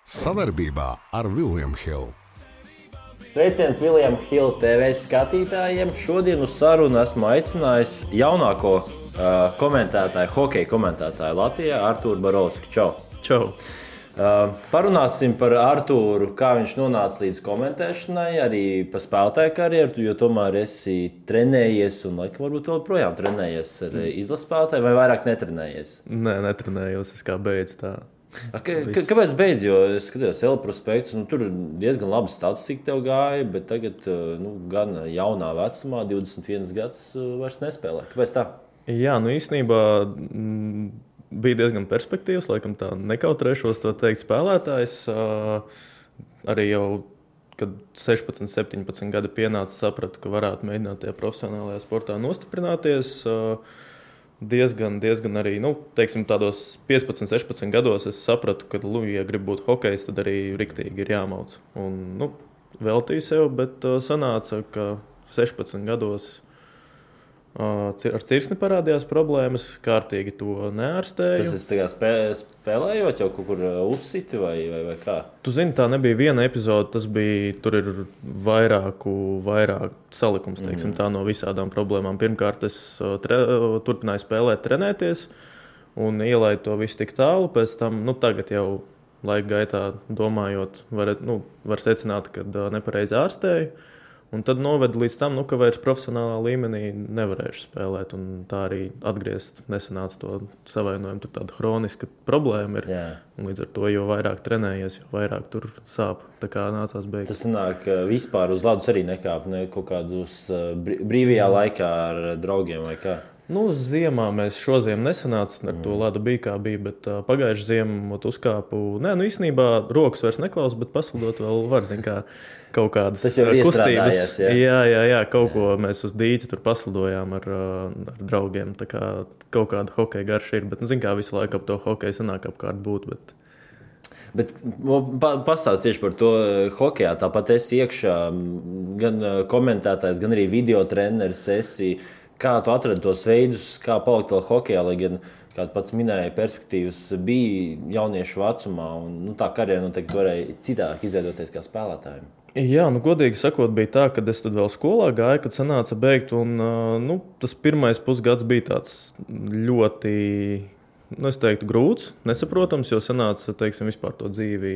Savarbībā ar William Hill. Sveiciens William Hill TV skatītājiem. Šodien uz sarunu esmu aicinājis jaunāko komentētāju, hokeja komentētāju Latvijā, Artūru Barovski. Čau! Čau! Parunāsim par Artūru, kā viņš nonāca līdz komentēšanai, arī par spēlētāju karjeru, jo tomēr esi trenējies un laikam varbūt vēl projām trenējies ar izlases spēlētāju, vai vairāk netrenējies? Nē, netrenējos, es kā beidzu tā. Kāpēc beidz? Jo es skatījos L-prospektus, tur diezgan laba statistika tev gāja, bet tagad gan jaunā vecumā, 21 gads, vairs nespēlē. Kāpēc tā? Jā, īstenībā bija diezgan perspektīvs, laikam tā nekautrēšos to teikt spēlētājs. Arī jau, kad 16, 17 gadi pienāca, sapratu, ka varētu mēģināt tajā profesionālajā sportā nostiprināties. Diezgan arī, teiksim, tādos 15, 16 gados es sapratu, ka, ja gribu būt hokejs, tad arī riktīgi ir jāmauc. Un, veltīju sev, bet sanāca, ka 16 gados ar cirsni parādījās problēmas, kārtīgi to neārstēju. Tas ir spēlējot jau kaut kur uzsiti vai kā? Tu zini, tā nebija viena epizode, tur ir vairāk salikums, teiksim, tā no visādām problēmām. Pirmkārt, es turpināju spēlēt, trenēties un ielaidu to visu tik tālu. Pēc tam, tagad jau laika gaitā domājot, var secināt, ka nepareizi ārstēju. Un tad noveda līdz tam, ka vairs profesionālā līmenī nevarēšu spēlēt. Un tā arī atgriezt nesanāca to savainojumu. Tur tāda hroniska problēma ir. Un līdz ar to, jo vairāk trenējies, jo vairāk tur sāp. Tā kā nācās beigt. Tas sanāk, vispār uz ledus arī nekāp, ne kaut kādus brīvajā laikā ar draugiem vai kā? Ziemā mēs šoziem nesanāca, ar to ledu bija kā bija, bet pagājuši ziemu uzkāpu. Īstenībā rokas vairs neklaus, bet paslidot vēl var, kā kaut kādas kustības. Jā, kaut ko mēs uz dīķa tur paslidojām ar draugiem. Tā kā kaut kāda hokeja garša ir, bet, kā visu laiku ap to hokeju sanāk apkārt būt, Bet pastāst tieši par to hokejā. Tāpat esi iekšā gan komentētājs, gan arī video treneris esi. Kā tu atradi tos veidus, kā palikt vēl hokejā, lai gan, kā pats minēja, perspektīvas bija jauniešu vecumā, un tā karjera noteikti varēja citāk izveidoties kā spēlētājiem? Jā, godīgi sakot, bija tā, kad es tad vēl skolā gāju, kad sanāca beigt, un tas pirmais pusgads bija tāds ļoti, es teiktu, grūts, nesaprotams, jo sanāca, teiksim, vispār to dzīvi,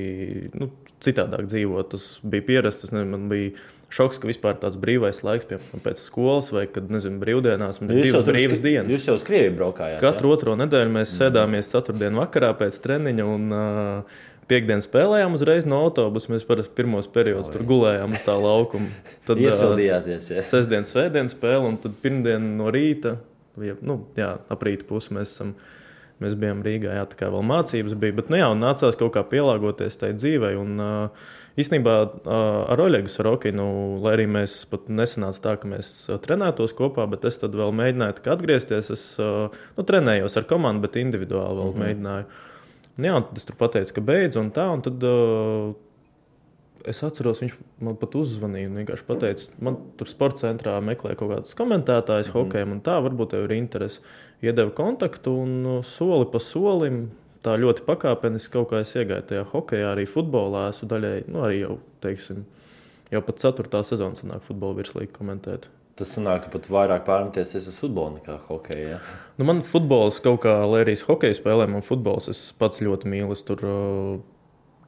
citādāk dzīvot. Tas bija pierasts, man bija šoks, ka vispār tāds brīvais laiks, piemēram, pēc skolas vai, kad, brīvdienās, man ir divas brīvas dienas. Jūs jau uz Krieviju braukājāt? Katru otro nedēļu mēs sēdāmies ceturtdienu vakarā pēc treniņa un piekdien spēlējām uzreiz no autobusa. Mēs parasti pirmos periodus tur gulējām uz tā laukuma. Tad iesildījāties, jā. Sestdien, svētdien spēle un tad pirmdien no rīta, ap rīta pusi mēs bijām Rīgā, tā kā vēl mācības bija, bet nācās kaut kā pielāgoties tai dzīvei. Un īstenībā ar Oļegu Sorokinu, lai arī mēs pat nesanāca tā, ka mēs trenētos kopā, bet es tad vēl mēģināju atgriezties. Es trenējos ar komandu, bet individuāli vēl mēģināju. Un tad es tur pateicu, ka beidzu un tā, un tad es atceros, viņš man pat uzzvanīja un vienkārši pateica, man tur sporta centrā meklē kaut kādus komentētājus hokejam un tā, varbūt tev ir interesi. Iedeva kontaktu un soli pa solim, tā ļoti pakāpeniski kaut kā es iegāju tajā hokejā, arī futbolā esmu daļēji, arī jau, teiksim, jau pat 4. sezona sanāk futbola virslīgi komentēt. Tas sanāk, ka pat vairāk pārmeties uz futbolu nekā hokeju, ja? Man futbols kaut kā, lai arī hokeju spēlē, man futbols es pats ļoti mīlu. Es tur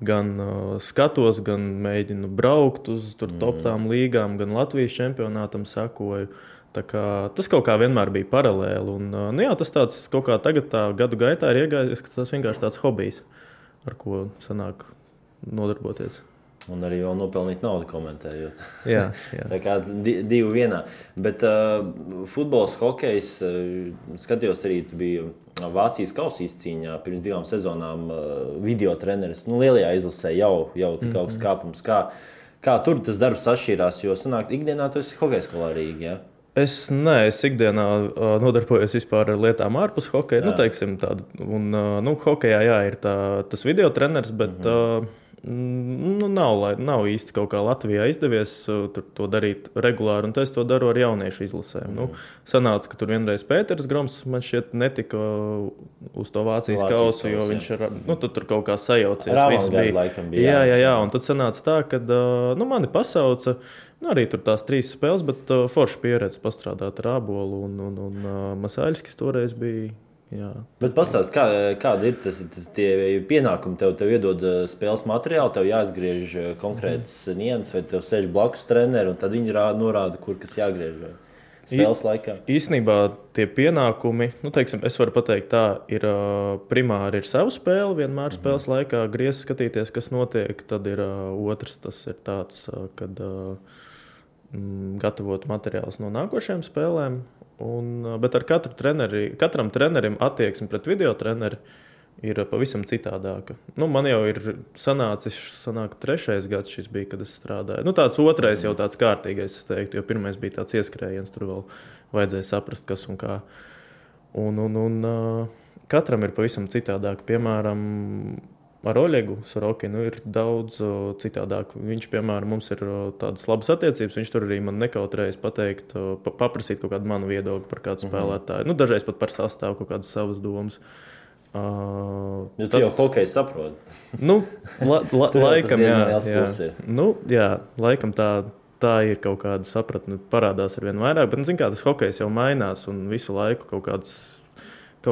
gan skatos, gan mēģinu braukt uz top-tām līgām, gan Latvijas čempionātam sekoju. Tā kā, tas kaut kā vienmēr bija paralēli. Un, tas tāds kaut kā tagad tā gadu gaitā ir iegājies, ka tas vienkārši tāds hobijs, ar ko sanāk nodarboties. Un arī vēl nopelnīt naudu komentējot. Jā. Tā kā divi vienā. Bet futbols, hokejs, skatījos arī, tu biji Vācijas kausa izcīņā pirms 2 sezonām video treneris. Lielajā izlasē jau kaut kas kāpums. Kā tur tas darbs atšķirās, jo sanāk, ikdienā tu esi hokeja skolā Rīgā, ja? Es ikdienā nodarbojos vispār ar lietām ārpus hokeja. Teiksim tādu. Un, hokejā, ir tas video treneris, bet Nav īsti kaut kā Latvijā izdevies to darīt regulāri, un es to daru ar jauniešu izlasēm. Sanāca, ka tur vienreiz Pēters Groms man šķiet netika uz to Vācijas kausu, jo viņš tur kaut kā sajaucies. Jā, un tad sanāca tā, ka mani pasauca, arī tur tās 3 spēles, bet forša pieredze pastrādāt ar Ābolu un Masāļskis toreiz bija. Jā. Bet pastāst, kāda ir tie pienākumi? Tev iedod spēles materiālu, tev jāizgriež konkrētas nianses, vai tev sēž blakus treneri, un tad viņi norāda, kur kas jāgriež spēles laikā? Īsnībā tie pienākumi, es varu pateikt tā, ir primāri ir savu spēli, vienmēr spēles laikā griez skatīties, kas notiek, tad ir otrs, tas ir tāds, kad gatavot materiālus no nākošajām spēlēm. Bet ar katram trenerim attieksme pret video treneri ir pavisam citādāka. Man jau ir sanāk 3. gads šis bija, kad es strādāju. Tāds 2. jau tāds kārtīgais, es teiktu, jo 1. bija tāds ieskrējiens, tur vēl vajadzēja saprast, kas un kā. Katram ir pavisam citādāk. Piemēram, ar Oļegu Sorokinu ir daudz citādāk. Viņš, piemēram, mums ir tādas labas attiecības. Viņš tur arī man nekautrējas pateikt, paprasīt kaut kādu manu viedokli par kādu spēlētāju. Dažreiz pat par sastāvu kaut kādas savas domas. Tu jau hokeju saproti. Laikam, jā. Laikam tā ir kaut kāda sapratne, parādās ar vien vairāk. Bet, tas hokejs jau mainās un visu laiku kaut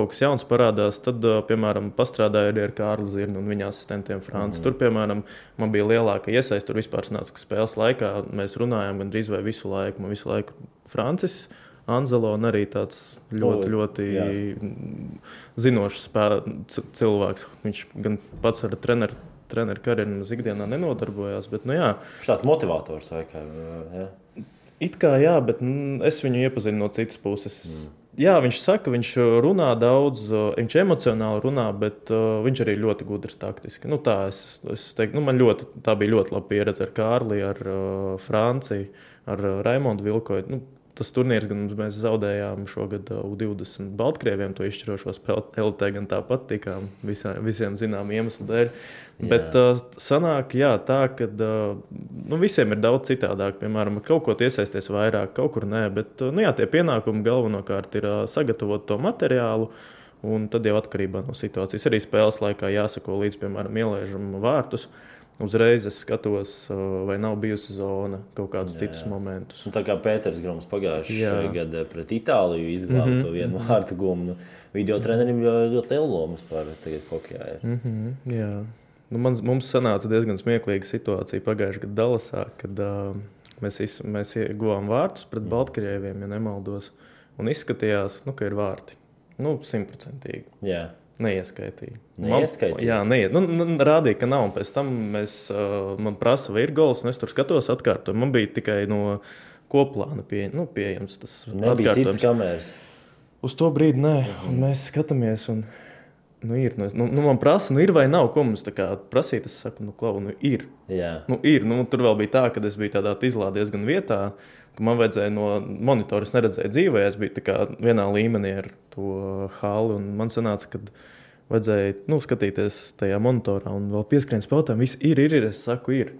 kas jauns parādās, tad, piemēram, pastrādāju arī ar Kārli Zirnu un viņa asistentiem Franci. Tur, piemēram, man bija lielāka iesaiste. Tur vispār sanāca, ka spēles laikā mēs runājām gandrīz vai visu laiku. Man visu laiku Francis Anzelo un arī tāds ļoti zinošs cilvēks. Viņš gan pats ar treneru karjeru ikdienā nenodarbojās, bet, Šāds motivators vai kā, jā? It kā jā, bet es viņu iepazinu no citas puses. Jā, viņš saka, viņš runā daudz, viņš emocionāli runā, bet viņš arī ļoti gudrs taktiski. Es teiktu, tā bija ļoti laba pieredze ar Kārli, ar Franciju, ar Raimondu Vilkoju. Tas turnīrs, gan mēs zaudējām šogad U20 Baltkrieviem to izšķirošo spēli. LT gan tāpat tikām visiem zinām iemeslu dēļ. Bet sanāk, tā, ka visiem ir daudz citādāk. Piemēram, kaut ko iesaisties vairāk, kaut kur nē. Bet tie pienākumi galvenokārt ir sagatavot to materiālu. Un tad jau atkarībā no situācijas. Arī spēles laikā jāsako līdz, piemēram, ielaižam vārtus. Uzreiz es skatos, vai nav bijusi zona, kaut kādus citus momentus. Tā kā Pēters Groms pagājušajā gadā pret Itāliju izglāba to vienu vārtu gumu. Video trenerim ļoti liela loma par tagad hokejā. Jā. Mums sanāca diezgan smieklīga situācija pagājušajā gadā Dallasā, kad mēs ieguvām vārtus pret Baltkrieviem, ja nemaldos, un izskatījās, ka ir vārti. 100%. Jā. Neieskaitīja. Jā, rādīja, ka nav. Un pēc tam man prasa, vai ir gols, un es tur skatos atkārtojumu. Man bija tikai no koplāna pieejams tas nebija atkārtojums. Citas kameras. Uz to brīdi nē. Un mēs skatāmies, un ir. Man prasa, ir vai nav, ko mums tā kā prasīt. Es saku, ir. Jā. Ir. Tur vēl bija tā, ka es biju tādā izlā diezgan vietā, ka man vajadzēja no monitora, es neredzēju dzīvē, es biju tā kā vienā līmenī ar to halli, un man sanāca, kad vajadzēja skatīties tajā monitorā un vēl pieskrien spēlētājiem, viss ir, es saku, ir.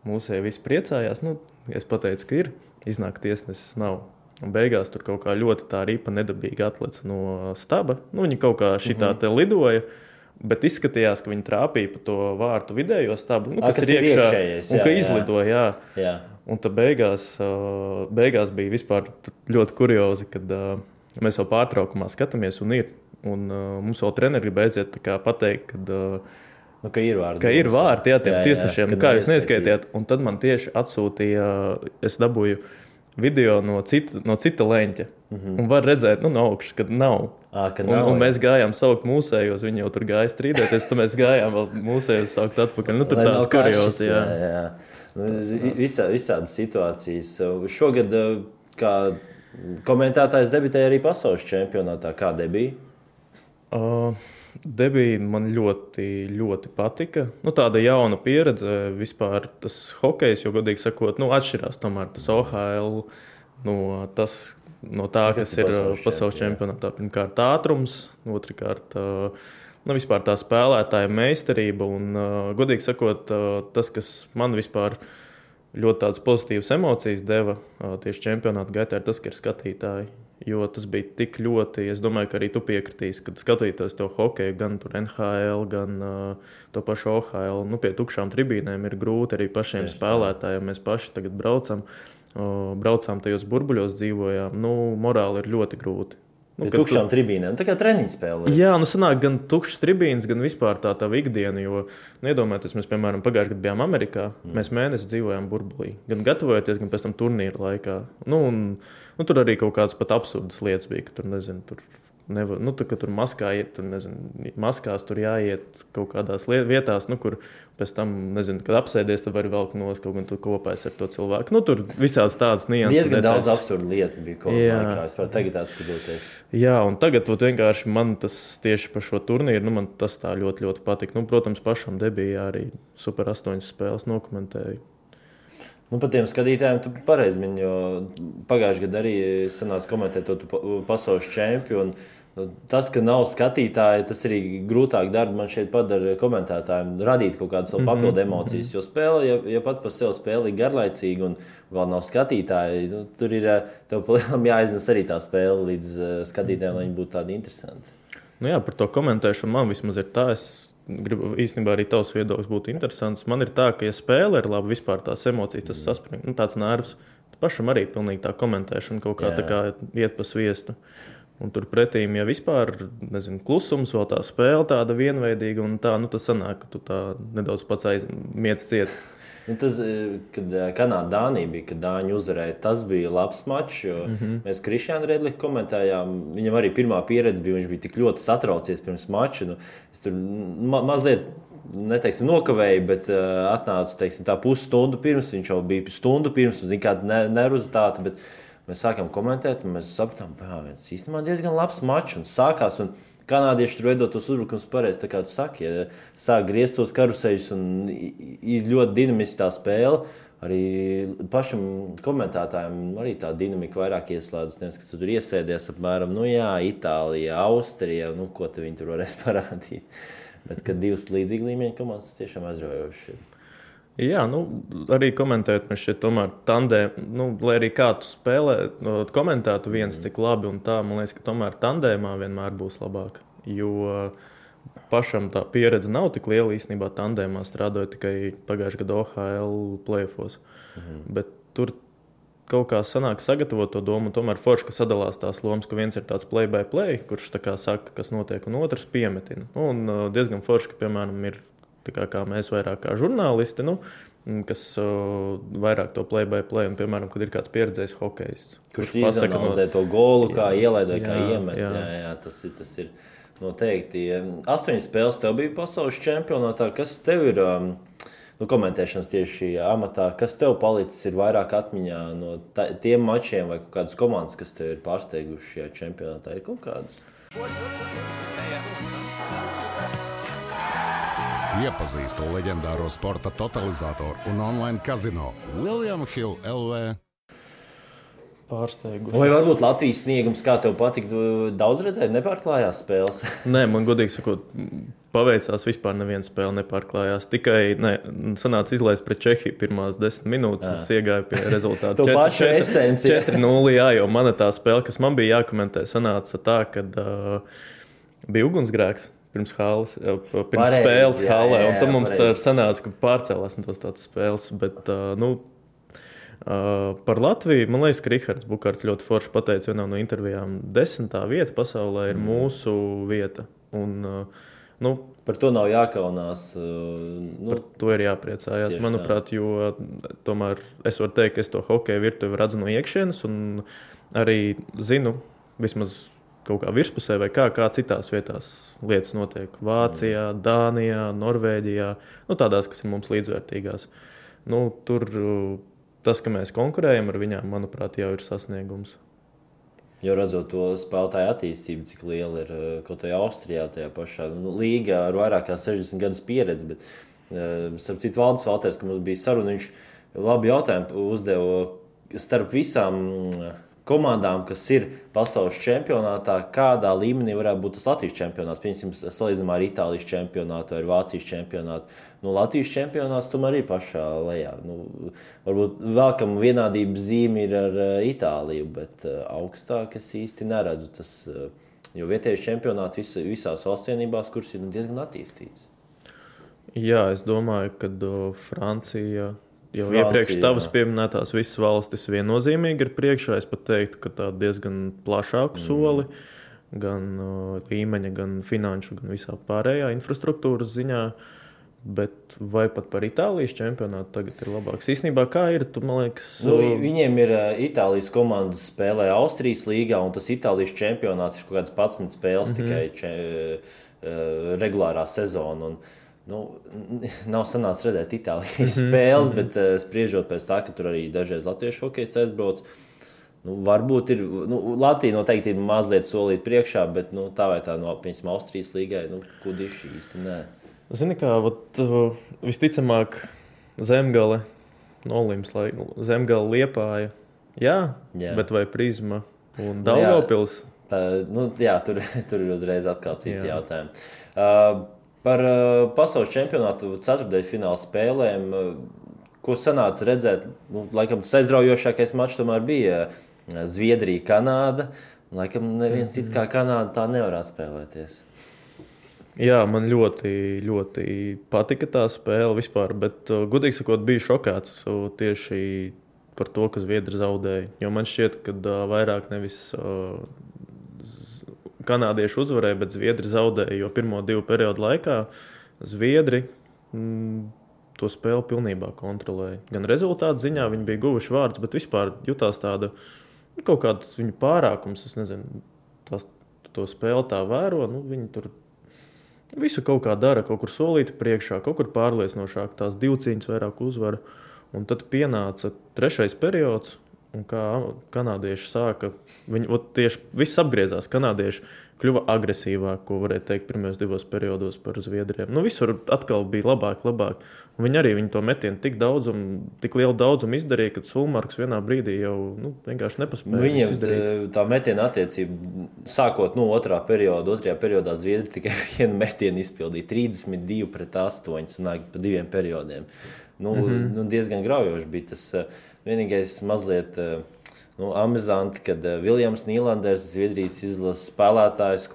Mūsēji visi priecājās, es pateicu, ka ir, iznāk tiesnesis nav. Un beigās tur kaut kā ļoti tā ripa nedabīgi atlec no staba, viņi kaut kā šitā te lidoja, bet izskatījās, ka viņi trāpīja pa to vārtu vidējo stabu, kas ir iekšā, iekšējais, un ka izlidoja, jā. Un tad beigās bija vispār ļoti kuriozi, kad mēs jau pārtraukumā skatāmies un ir. Un mums vēl treneri grib aiziet pateikt, ka ir vārti. Ka ir vārti, tiem tiesnešiem. Kā jūs neskaitiet? Un tad man tieši atsūtīja, es dabūju video no cita leņķa. Un var redzēt, no augšas, kad nav. Un mēs gājām saukt mūsējos, viņi jau tur gāja strīdēties, tad mēs gājām vēl mūsējos saukt atpakaļ. Tur tāds kuriozi, jā. Visādas situācijas. Šogad, kā komentētājs debitēja arī pasaules čempionātā. Kā debija? Debija man ļoti, ļoti patika. Tāda jauna pieredze vispār tas hokejs, jo godīgi sakot, atšķirās tomēr tas OHL no tā, kas ir pasaules čempionātā. Pirmkārt ātrums, otrkārt vispār tā spēlētāja meistarība un, godīgi sakot, tas, kas man vispār ļoti tādas pozitīvas emocijas deva tieši čempionāta gaitā, ir tas, ka ir skatītāji. Jo tas bija tik ļoti, es domāju, ka arī tu piekritīsi, kad skatītos to hokeju, gan tur NHL, gan to pašu OHL. Pie tukšām tribīnēm ir grūti arī pašiem spēlētājiem. Mēs paši tagad braucām tajos burbuļos, dzīvojām. Morāli ir ļoti grūti. Pie tukšām tribīnēm, tā kā treniņu spēlē. Jā, sanāk gan tukšas tribīnes, gan vispār tā ikdiena, jo, iedomājieties, mēs, piemēram, pagājušajā gadā bijām Amerikā, mēs mēnesi dzīvojām burbulī, gan gatavojoties, gan pēc tam turnīra laikā. Tur arī kaut kādas pat absurdas lietas bija, ka tur, nezinu, ka tur maskā iet, maskās tur jāiet kaut kādās vietās, kur pēc tam, nezinu, kad apsēdies, tad var velkt nost, kaut gan tu kopēs ar to cilvēku. Tur visāds tādas nianses. Diezgan daudz absurdu lietu bija kaut kā, es tagad atskatoties. Jā, un tagad vienkārši man tas tieši par šo turnīru, man tas tā ļoti, ļoti patika. Protams, pašam debijā arī Super 8 spēles nokomentēju. Par tiem skatītājiem tu pareizi mini, jo pagājušajā gadā arī sanāca komentēt to pasaules čempionu. Tas, ka nav skatītāji, tas arī grūtāk darbu man šeit padara komentētājiem radīt kaut kādas papildu emocijas. Jo spēle, ja pat par sevi spēle ir garlaicīga un vēl nav skatītāji, tur ir tev palielam jāiznes arī tā spēle līdz skatītājiem, lai viņi būtu tādi interesanti. Jā, par to komentēšanu man vismaz ir tā. Es gribu īstenībā arī tavs viedoklis būtu interesants. Man ir tā, ka, ja spēle ir laba, vispār tās emocijas, tas saspring, tāds nervs. Pašam arī pilnīgi tā komentēšana kaut kā tā kā iet pa sviestu. Un tur pretīm, ja vispār, nezinu, klusums, vēl tā spēle tāda vienveidīga un tā, tas sanāk, ka tu tā nedaudz pats miec ciet. Tas, kad Kanāda-Dānija bija, kad Dāņi uzvarēja, tas bija labs mačs, jo mēs Krišjānu Redliku komentējām, viņam arī pirmā pieredze bija, viņš bija tik ļoti satraucies pirms mača. Es tur mazliet, neteiksim, nokavēju, bet atnācu, teiksim, tā pusstundu pirms, viņš jau bija stundu pirms, un zin kāda nervozitāte, bet mēs sākām komentēt, un mēs sapratām, viens īstenībā diezgan labs mačs, un sākās, un kanādieši tur veidot tos uzbrukums pareizi, tā kā tu saki, ja sāk griezt tos karuseļus, un ir ļoti dinamiski tā spēle, arī pašam komentētājiem arī tā dinamika vairāk ieslēdzas, nevis, ka tu tur iesēdies apmēram, Itālija, Austrija, ko te viņi tur varēs parādīt, bet kad divas līdzīgi līmeņa komandas tiešām aizraujoši ir. Jā, arī komentēt, mēs šeit tomēr tandēmā, lai arī kā tu spēlē, komentētu viens cik labi un tā, man liekas, ka tomēr tandēmā vienmēr būs labāk, jo pašam tā pieredze nav tik liela īstenībā tandēmā, strādāju tikai pagājušajā gadā OHL playoffos, bet tur kaut kā sanāk sagatavot to domu, un tomēr forši, ka sadalās tās lomas, ka viens ir tāds play-by-play, kurš tā kā saka, kas notiek, un otrs piemetina. Un diezgan forši, ka, piemēram, ir kā mēs vairāk kā žurnālisti, kas vairāk to play-by-play, un, piemēram, kad ir kāds pieredzējis hokejists. Kurš izanalizē to golu, kā ielaid vai kā iemet. Jā, tas ir noteikti. 8 spēles tev bija pasaules čempionātā. Kas tev ir komentēšanas tieši amatā? Kas tev palicis ir vairāk atmiņā no tiem mačiem vai kaut kādas komandas, kas tev ir pārsteiguši šajā čempionātā? Ir kaut kādas? Iepazīstu leģendāro sporta totalizatoru un online kazino William Hill LV. Pārsteiguši. Vai varbūt Latvijas sniegums, kā tev patika, daudz redzēt, nepārklājās spēles? Nē, man godīgi sakot, paveicās vispār neviena spēle nepārklājās. Tikai sanāca izlaist pret Čehiju pirmās 10 minūtes, es iegāju pie rezultātu 4-0, jo mana tā spēle, kas man bija jākomentē, sanāca tā, kad bija ugunsgrēks. Pirms spēles halē, un tam mums tā sanāca, ka pārcēlās no tādas spēles, bet, par Latviju, man liekas, ka Rihards Bukārts ļoti forši pateica vienā no intervijām, 10. vieta pasaulē ir mūsu vieta, un, par to nav jākaunās. Par to ir jāpriecājās, manuprāt, jo tomēr es varu teikt, ka es to hokeju virtuvi redzu no iekšienes, un arī zinu, vismaz kaut kā virspusē vai kā citās vietās lietas notiek. Vācijā, Dānijā, Norvēģijā, tādās, kas ir mums līdzvērtīgās. Tur tas, ka mēs konkurējam ar viņām, manuprāt, jau ir sasniegums. Jo redzot to spēlētāju attīstību, cik liela ir kaut kādā Austrijā, tajā pašā līgā ar vairāk kā 60 gadus pieredzi, bet starp citu Valdis Valters, ka mums bija saruna, viņš labi jautājumu uzdeva starp visām komandām, kas ir pasaules čempionātā, kādā līmenī varētu būt tas Latvijas čempionāts. Piemēram, salīdzinājumā ar Itālijas čempionātu vai Vācijas čempionātu. Latvijas čempionāts tomēr ir pašā lejā. Varbūt vēlkam vienādības zīme ir ar Itāliju, bet augstāk es īsti neredzu. Jo vietējais čempionāts visās valstsienībās, kuras ir diezgan attīstīts. Jā, es domāju, ka Francija iepriekš tavas pieminētās visas valstis viennozīmīgi ir priekšā. Es pat teiktu, ka tā diezgan plašāku soli, gan līmeņa, gan finanšu, gan visā pārējā infrastruktūras ziņā. Bet vai pat par Itālijas čempionātu tagad ir labāks? Īstenībā kā ir, man liekas... Viņiem ir Itālijas komandas spēlē Austrijas līgā, un tas Itālijas čempionāts ir kaut kāds 11 spēles tikai regulārā sezona. Nav sanācis redzēt Itālijas spēles, bet spriežot pēc tā, ka tur arī dažreiz latviešu hokejs aizbrauc. Varbūt ir, Latvija noteikti ir mazliet solīt priekšā, bet tā vai tā piemēram Austrijas līgai, kudiši īsti nē. Zini kā, visticamāk Zemgale, Nolims, Zemgale Liepāja, jā, bet vai Prizma un Daugavpils? Tur ir uzreiz atkal citi jautājumi. Par pasaules čempionātu ceturtdaļfināla spēlēm, ko sanāca redzēt, laikam tas aizraujošākais mačs tomēr bija Zviedrija, Kanāda. Laikam neviens cits kā Kanāda tā nevarētu spēlēties. Jā, man ļoti, ļoti patika tā spēle vispār, bet, godīgi sakot, biju šokāts tieši par to, ka Zviedri zaudēja. Jo man šķiet, ka vairāk nevis kanādieši uzvarēja, bet Zviedri zaudēja, jo pirmo 2 periodu laikā Zviedri to spēli pilnībā kontrolēja. Gan rezultātu ziņā viņi bija guvuši vārdus, bet vispār jutās tāda kaut kāds viņu pārākums, es nezinu, to spēli tā vēro, viņi tur visu kaut kā dara, kaut kur solīti priekšā, kaut kur pārliecinošāk, tās 2 cīņas vairāk uzvara. Un tad pienāca 3. periods, un kā kanādieši sāka, tieši viss apgriezās. Kanādieši kļuva agresīvāk, ko varēja teikt pirmajos 2 periodos par Zviedriem. Visur atkal bija labāk. Un viņi to metienu tik lielu daudzumu izdarīja, ka Sulmarks vienā brīdī jau vienkārši nepaspēja viņiem tā metiena attiecība, sākot 2. periodā Zviedri tikai vienu metienu izpildīja 32-8, sanāk pa 2 periodiem. Diezgan graujoši bija tas vienīgais mazliet amizanti, kad Viljams Nīlanders, Zviedrijas izlases spēlētājs,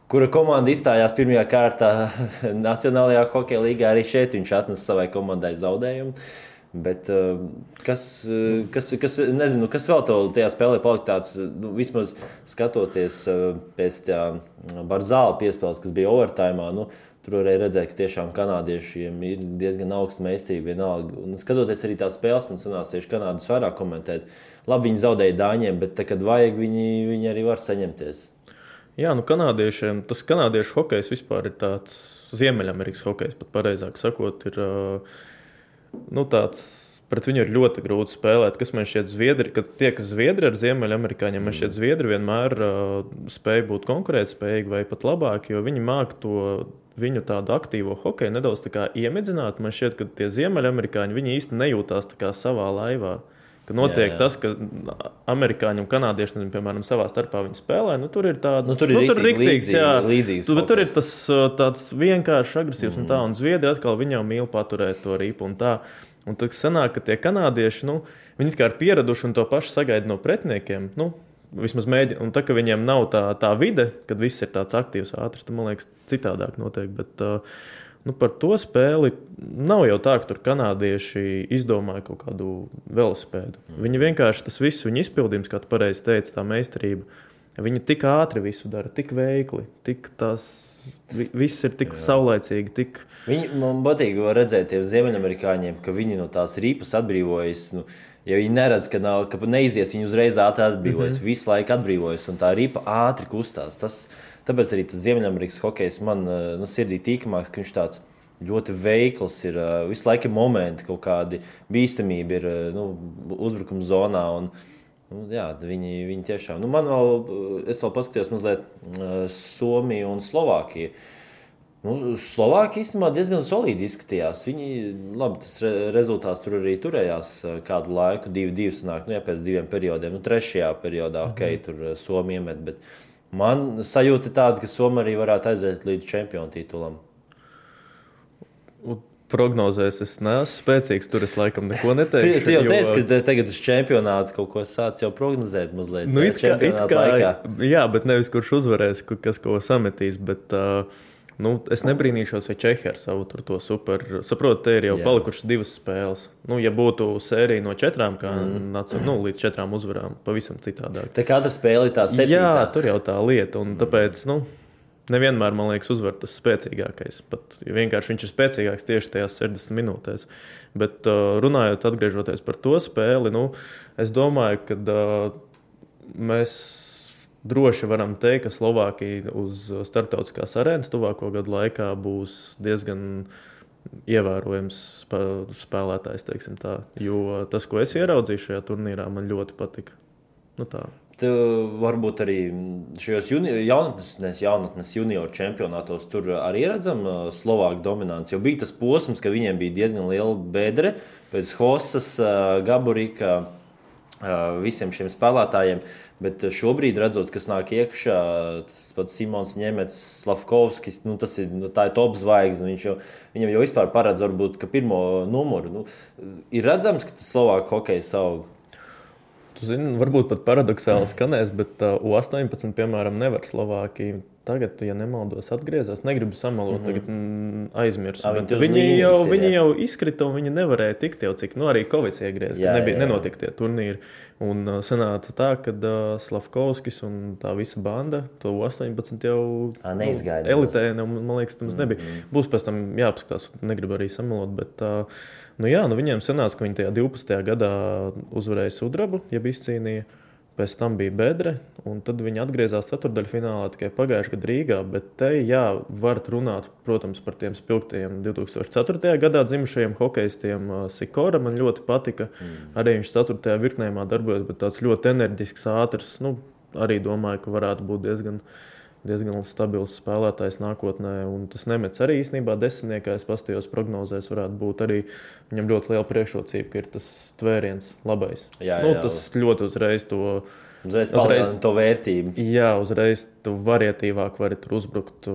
kura komanda izstājās pirmajā kārtā Nacionālajā hokeja līgā, arī šeit viņš atnesa savai komandai zaudējumu. Bet kas vēl tajā spēlē palika tāds, vismaz skatoties pēc tā Barzāla piespēles, kas bija overtājumā, tur varēja redzēt, ka tiešām kanādiešiem ir diezgan augsta meistarība vienalga. Un skatoties arī tās spēles, man sanāca tieši Kanādus vairāk komentēt. Labi, viņi zaudēja Dāņiem, bet kad vajag, viņi arī var saņemties. Jā, kanādiešiem, tas kanādiešu hokejs vispār ir tāds Ziemeļamerikas hokejs, pat pareizāk sakot, ir tāds, pret viņu ir ļoti grūti spēlēt. Kas man šķiet Zviedri, kad tiekas Zviedri ar Ziemeļamerikāņiem, man šķiet Zviedri vienmēr spēja būt konkurētspējīgi vai pat labāki, jo viņi māk to viņu tādu aktīvo hokeju nedaudz tā kā iemedzināt. Man šķiet, ka tie Ziemeļamerikāņi, viņi īsti nejūtās tā kā savā laivā. Ka notiek tas, ka amerikāņi un kanādieši, piemēram, savā starpā viņi spēlē, tur ir tāda... tur ir riktīgs, līdzīgs. Tur ir tas tāds vienkārši agresīvs un tā, un Zviedri atkal viņi jau mīl paturēt to ripu un tā. Un tad sanāk, ka tie kanādieši, viņi kā ir pieraduši un to pašu sagaida no pretiniekiem, vismaz mēģina. Un tā, ka viņiem nav tā vide, kad viss ir tāds aktīvs, ātrs, tad, man liekas, citādāk notiek. Bet par to spēli nav jau tā, ka tur kanādieši izdomāja kaut kādu velosipēdu. Viņi vienkārši tas viss, viņa izpildījums, kā tu pareizi teici, tā meistarība, viņi tik ātri visu dara, tik veikli, tik viss ir tik saulaicīgi. Man patīk redzēt tiem Ziemeļamerikāņiem, ka viņi no tās rīpas atbrīvojas. Ja viņi neredz, ka neizies, viņi uzreiz ātri atbrīvojas, visu laiku atbrīvojas, un tā ripa ātri kustās. Tāpēc arī tas Ziemeļamerikas hokejs man sirdī tīkamāks, ka viņš tāds ļoti veikls ir. Visu laiku ir momenti, kaut kādi bīstamība ir uzbrukuma zonā. Un, viņi tiešām. Es vēl paskatījos mazliet Somiju un Slovākiju. Slovāki īstenībā diezgan solīdi izskatījās. Viņi, labi, tas rezultāts tur arī turējās kādu laiku, 2-2 sanāk, pēc 2 periodiem. Trešajā periodā, tur Somija iemet, bet man sajūta tāda, ka Somija arī varētu aiziet līdz čempionu titulam. Prognozēs es neesmu spēcīgs, tur es laikam neko neteikšu. Tu jau teici, ka tagad uz čempionātu kaut ko sāc jau prognozēt mazliet. Laikā. Jā, bet nevis kurš uzvarēs, kas ko sametīs, bet es nebrīnīšos, vai Čehi ar savu to super. Saprotu, te ir jau palikušas 2 spēles. Ja būtu sērija no 4, kā līdz 4 uzvarām, pavisam citādāk. Te katra spēle ir tā 7. Jā, tur jau tā lieta, un tāpēc, nevienmēr, man liekas, uzvar tas spēcīgākais. Pat vienkārši viņš ir spēcīgāks tieši tajās 60 minūtēs. Bet runājot, atgriežoties par to spēli, es domāju, ka mēs droši varam teikt, ka Slovākija uz starptautiskās arēnas tuvāko gadu laikā būs diezgan ievērojams spēlētājs, teiksim tā. Jo tas, ko es ieraudzīju šajā turnīrā, man ļoti patika. Tā. Varbūt arī šajos jaunatnes junioru čempionātos tur arī redzam Slovāku dominanci. Jo bija tas posms, ka viņiem bija diezgan liela bedre pēc Hosas, Gaburika, visiem šiem spēlētājiem. Bet šobrīd, redzot, kas nāk iekšā, tas pats Simons Ņemets, Slavkovskis, tā ir top zvaigzne. Viņam jau vispār paredz varbūt, ka pirmo numuru. Ir redzams, ka tas Slovāku hokejs aug. Tu zini, varbūt pat paradoxāli skanēs, bet U18, piemēram, nevar Slovākija. Tagad, ja nemaldos, atgriezās. Negribu samalot, tagad aizmirsu. Viņi jau izkrita un viņi nevarēja tikt jau cik. Arī Kovics iegriez, ka nenotika tie turnīri. Un sanāca tā, ka Slavkovskis un tā visa banda, to U18 jau elitē, man liekas, tam nebija. Būs pēc tam jāpaskatās, negribu arī samalot, bet viņiem sanāca, ka viņi tajā 12. gadā uzvarēja sudrabu, ja izcīnīja. Pēc tam bija bedre, un tad viņi atgriezās ceturdaļfinālā tikai pagājušajā gadā Rīgā. Bet te, var runāt, protams, par tiem spilgtajiem 2004. gadā dzimušajiem hokejistiem. Sikora man ļoti patika. Arī viņš 4. virknējumā darbojas, bet tāds ļoti enerģisks, ātrs. Arī domāju, ka varētu būt diezgan stabils spēlētājs nākotnē. Un tas Nemets arī īstenībā desmitniekā, es pastījos prognozēs, varētu būt arī viņam ļoti liela priekšrocība, ka ir tas tvēriens labais. Tas ļoti uzreiz to vērtību. Jā, uzreiz tu varietīvāk vari tur uzbrukt.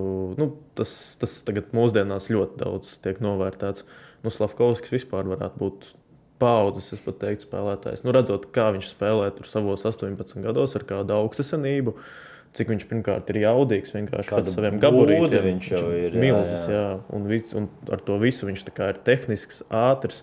Tas tagad mūsdienās ļoti daudz tiek novērtēts. Slavkovskis vispār varētu būt paudzes, es pat teiktu, spēlētājs. Redzot, kā viņš spēlē tur savos 18 gados ar kādu augstasenību, cik viņš pirmkārt ir jaudīgs, vienkārši pēc saviem gabarītiem. Viņš jau ir milzis, jā. Un ar to visu viņš tā kā ir tehnisks, ātrs.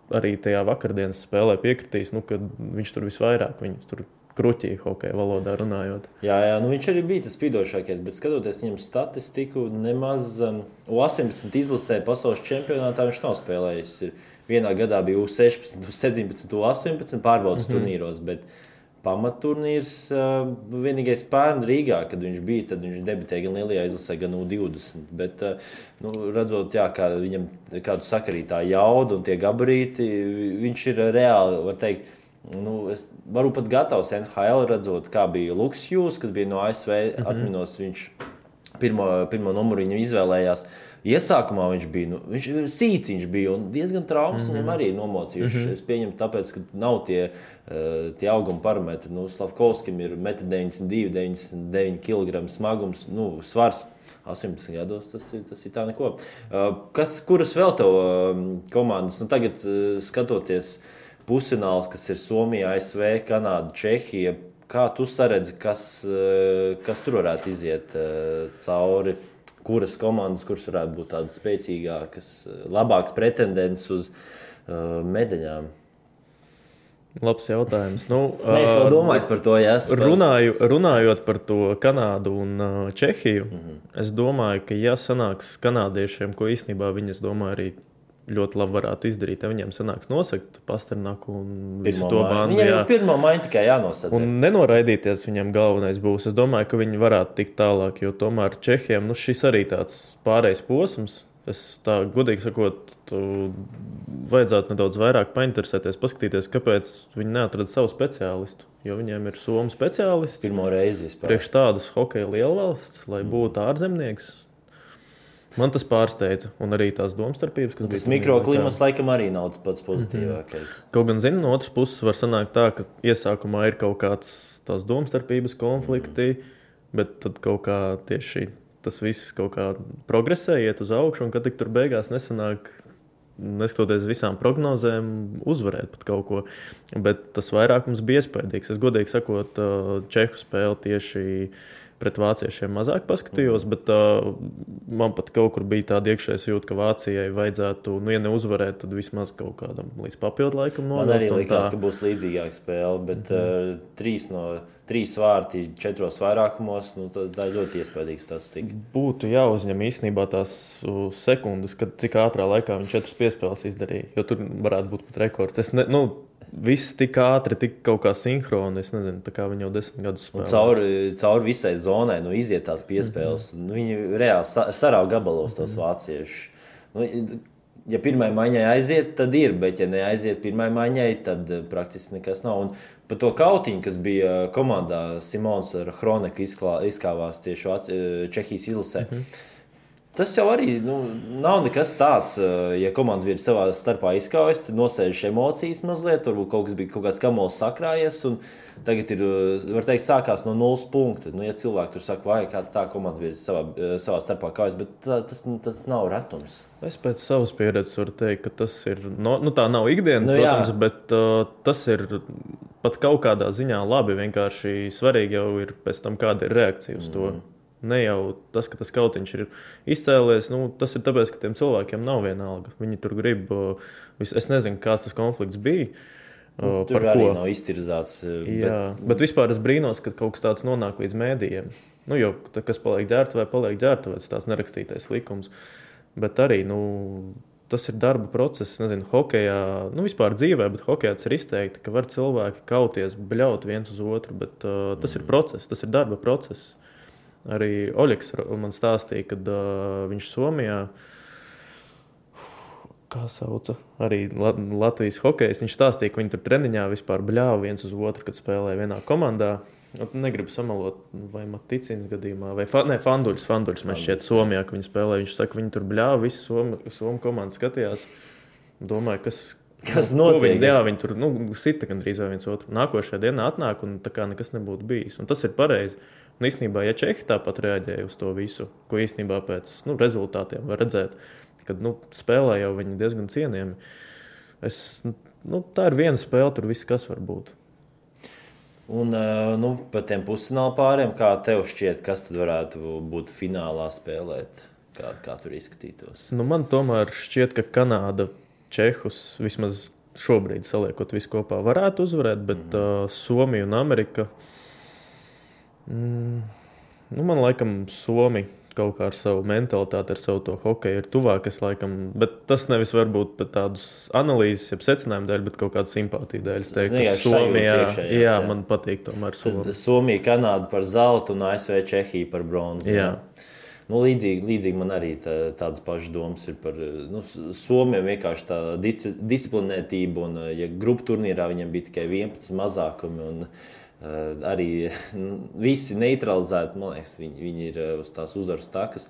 Arī tajā vakardienas spēlē piekritīs, kad viņš tur visvairāk, viņš tur kruķīja hokeja valodā runājot. Jā, viņš arī bija tas spīdošākais, bet skatoties viņam statistiku, nemaz U18 izlasē pasaules čempionātā viņš nav spēlējis. Vienā gadā bija U16, U17, U18 pārbaudas turnīros, bet pamatturnīrs vienīgais pērn Rīgā, kad viņš bija, tad viņš debitēja gan lielajā izlasē, gan U20. Bet, redzot, kā viņam kādu sakarītā jauda un tie gabarīti, viņš ir reāli, var teikt, es varu pat gatavs NHL redzot, kā bija Luks Hughes, kas bija no ASV, atminos, viņš pirmo numuru viņu izvēlējās. Iesākumā viņš bija, sīciņš bija un diezgan traumas viņam arī nomocījuši. Es pieņemu tāpēc, ka nav tie auguma parametri. Slavkovskim ir 1,92 m, 99 kg smagums, svars 18 gados, tas ir tā neko. Kuras vēl tev komandas? Tagad skatoties pusfināls, kas ir Somija, ASV, Kanāda, Čehija, kā tu saredzi, kas tur varētu iziet cauri? Kuras komandas, kuras varētu būt tādas spēcīgākas, labākas pretendents uz medaļām? Labs jautājums. Es vēl domāju par to, runājot par to Kanādu un Čehiju, es domāju, ka sanāks kanādiešiem, ko īstenībā viņi, es domāju, arī ļoti labi varētu izdarīt, ja viņiem sanāks nosakt Pasternaku un visu to bandu. Viņiem pirmo maiņu tikai jānosaka. Un nenoraidīties viņam galvenais būs. Es domāju, ka viņi varētu tikt tālāk, jo tomēr Čehiem šis arī tāds pārējais posms. Es tā godīgi sakot, vajadzētu nedaudz vairāk painteresēties, paskatīties, kāpēc viņi neatrada savu speciālistu. Jo viņiem ir somu speciālists. Pirmo reizi vispār. Priekš tādas hokeja lielvalsts, lai būtu ārzemnieks. Man tas pārsteidza, un arī tās domstarpības, kas tas mikroklimats laikam arī nav tas pats pozitīvākais. Kaut gan, no otras puses var sanākt tā, ka iesākumā ir kaut kāds tās domstarpības konflikti, bet tad kaut kā tieši tas viss kaut kā progresē, iet uz augšu, un kad tik tur beigās nesanāk, neskatoties visām prognozēm, uzvarēt pat kaut ko. Bet tas vairākums bija iespējams. Es godīgi sakot, Čehu spēli tieši pret vāciešiem mazāk paskatījos, bet man pat kaut kur bija tāda iekšējā jūta, ka Vācijai vajadzētu, ja neuzvarēt, tad vismaz kaut kādam līdz papildu laikam nonākt. Man arī likās, ka būs līdzīgāka spēle, bet 3 vārti 4 vairākumos, tā ir ļoti iespējīga statistika. Būtu jāuzņem īstenībā tās sekundes, kad cik ātrā laikā viņi 4 piespēles izdarīja, jo tur varētu būt pat rekords. Viss tik ātri, tik kaut kā sinhroni, es nezinu, tā kā viņi jau 10 gadus spēlē. Cauri visai zonai, iziet tās piespēles. Viņi reāli sarauj gabalos tos vāciešus. Ja pirmai maiņai aiziet, tad ir, bet ja neaiziet pirmai maiņai, tad praktiski nekas nav. Un par to kautiņu, kas bija komandā, Simons ar Hroneku izkāvās tieši Čehijas izlasē. Tas jau arī nav nekas tāds, ja komandas bija savā starpā izkaujas, tad nosēžas emocijas mazliet, varbūt kaut kāds kamols sakrājies, un tagad ir, var teikt, sākās no 0 punkta. Ja cilvēki tur saka, vai kā tā komandas bija savā starpā kaujas, bet tas nav retums. Es pēc savas pieredzes varu teikt, ka tas ir, tā nav ikdiena, protams, bet tas ir pat kaut kādā ziņā labi, vienkārši svarīgi jau ir pēc tam, kāda ir reakcija uz to. Ne jau tas, ka tas kautiņš ir izcēlies, tas ir tāpēc, ka tiem cilvēkiem nav vienalga. Viņi tur grib, es nezinu, kāds tas konflikts bija. Tur arī nav iztirzāts. Bet vispār es brīnos, ka kaut kas tāds nonāk līdz mēdījiem. Jo kas paliek ģērbtuvēs, tās nerakstītais likums. Bet arī, tas ir darba process, nezinu, hokejā, vispār dzīvē, bet hokejā tas ir izteikti, ka var cilvēki kauties, bļaut viens uz otru, bet tas ir process, tas ir darba process. Arī Oļeks man stāstīja, kad viņš Somijā, kā sauca, arī Latvijas hokejs, viņš stāstīja, ka viņi tur treniņā vispār bļāva viens uz otru, kad spēlēja vienā komandā. Negribu samalot, vai Maticīnas gadījumā, vai Fanduļs man šķiet Somijā, ka viņi spēlēja. Viņš saka, viņi tur bļāva, visi Somu komandu skatījās. Domāju, kas notiek? Viņi tur sita gandrīz vai viens otru. Nākošajā dienā atnāk un tā kā nekas nebūtu bijis. Un tas ir pareizi. Un īstenībā, ja Čehi tāpat reaģēja uz to visu, ko īstenībā pēc rezultātiem var redzēt, kad spēlē jau viņi diezgan cienījami. Tā ir viena spēle, tur viss kas var būt. Un par tiem pusfināla pāriem, kā tev šķiet, kas tad varētu būt finālā spēlēt? Kā tur izskatītos? Man tomēr šķiet, ka Kanāda Čehus vismaz šobrīd saliekot visu kopā varētu uzvarēt, bet Somija un Amerika, man laikam Somija kaut kā ar savu mentalitāti, ar savu to hokeju ir tuvāk, bet tas nevis varbūt pat tādus analīzes, jeb secinājumu dēļ, bet kaut kādu simpātiju dēļ. Es teiktu, ka Somija, man patīk tomēr Somija. Somija, Kanāda par zeltu un ASV Čehija par bronzu. Jā. Līdzīgi man arī tādas pašas domas ir par Somiem, vienkārši tā disciplinētība, un ja grupu turnīrā viņam bija tikai 11 mazākumi, un arī visi neutralizēti, man liekas, viņi ir uz tās uzvaras takas.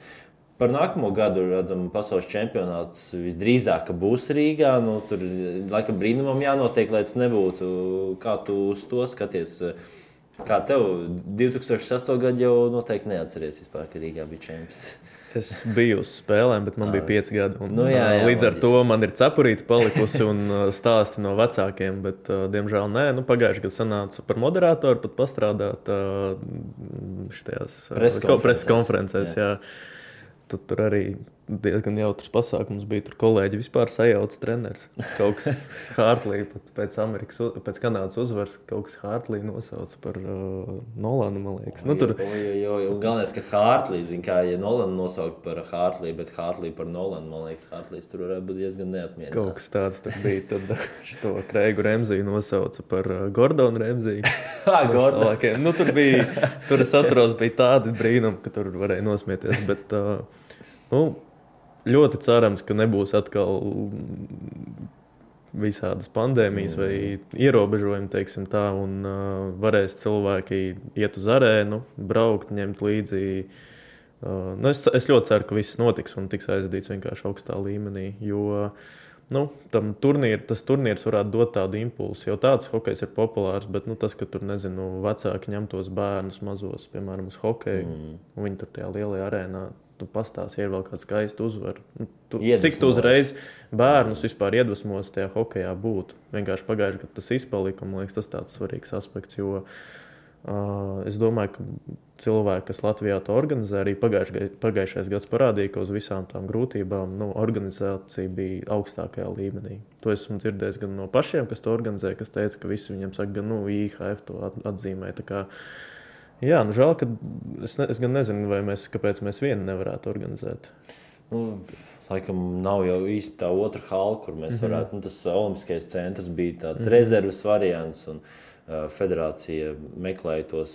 Par nākamo gadu redzam, pasaules čempionāts visdrīzāk būs Rīgā. Tur laikam brīnumam jānotiek, lai tas nebūtu. Kā tu uz to skaties? Kā tev 2008. gadu jau noteikti neatceries vispār, ka Rīgā bija čempions? Es biju uz spēlēm, bet man bija 5 gadi. Jā, līdz ar to man ir cepurīte palikusi un stāsti no vecākiem, bet diemžēl nē. Pagājušajā gadā sanāca par moderātoru pat pastrādāt šitajās preses konferencēs. Jā. Tur arī diezgan jautrs pasākums bija. Tur kolēģi vispār sajauca treneris. Kaut kas Hartlī pēc Kanādas uzvaras, kaut kas Hartlī nosauca par Nolanu, man liekas. Galvenais, ka Hartlī, ja Nolanu nosaukt par Hartlī, bet Hartlī par Nolanu, man liekas, Hartlīs tur varētu būt diezgan neapmierināts. Kaut kas tāds tur bija. Tad šito Kreigu Remziju nosauca par Gordonu Remziju. Tur es atceros, bija tādi brīnumi, ka tur varēja nosmieties, bet ļoti cerams, ka nebūs atkal visādas pandēmijas vai ierobežojumi, teiksim tā, un varēs cilvēki iet uz arēnu, braukt, ņemt līdzi Es ļoti ceru, ka viss notiks un tiks aizvadīts vienkārši augstā līmenī, jo tas turnīrs varētu dot tādu impulsu, jo tāds hokejs ir populārs, bet tas, ka tur, vecāki ņem tos bērnus mazos, piemēram, uz hokeju, un viņi tur tajā lielajā arēnā, tu pastāsti, ir vēl kāds skaisti uzvar. Cik tu uzreiz bērnus vispār iedvesmos tajā hokejā būt? Vienkārši pagājuši, kad tas izpalika, man liekas, tas tāds svarīgs aspekts, jo es domāju, ka cilvēki, kas Latvijā to organizē, arī pagājušais gads parādīja, ka uz visām tām grūtībām organizācija bija augstākajā līmenī. To esmu dzirdējis gan no pašiem, kas to organizē, kas teica, ka visi viņiem saka, gan IHF to atzīmē. Tā kā, jā, žēl, ka es gan nezinu, kāpēc mēs vieni nevarētu organizēt. Laikam nav jau īsti tā otra hala, kur mēs varētu, tas olimpiskais centrs bija tāds rezerves variants, un federācija meklēja tos.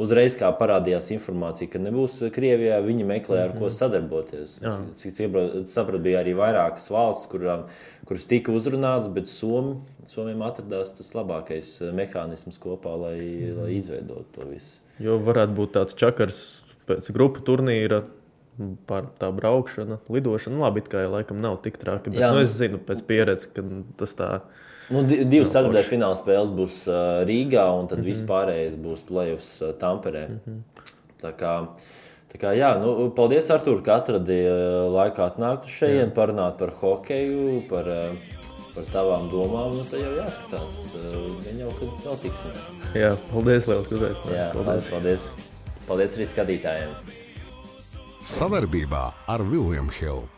Uzreiz, kā parādījās informācija, ka nebūs Krievijā, viņi meklēja, ar ko sadarboties. Cik sapratu, bija arī vairākas valsts, kuras tika uzrunātas, bet Somijam atradās tas labākais mehānisms kopā, lai izveidotu to visu. Jo varētu būt tāds čakars pēc grupu turnīra, par tā braukšana, lidošana. Labi, it kā laikam nav tik traki, bet es zinu pēc pieredzes, ka tas tā... Divas ceturtdaļu fināla spēles būs Rīgā, un tad vispārējais būs play-offs Tamperē. Tā kā jā, paldies, Artūr, ka atradi laiku atnākt uz šeit, parunāt par hokeju, par tavām domām. Tad jau jāskatās, jau kad vēl tiksimies. Jā, paldies, liels, ka uzaicinājāt. Jā, paldies. Paldies arī skatītājiem. Savarbībā ar William Hill.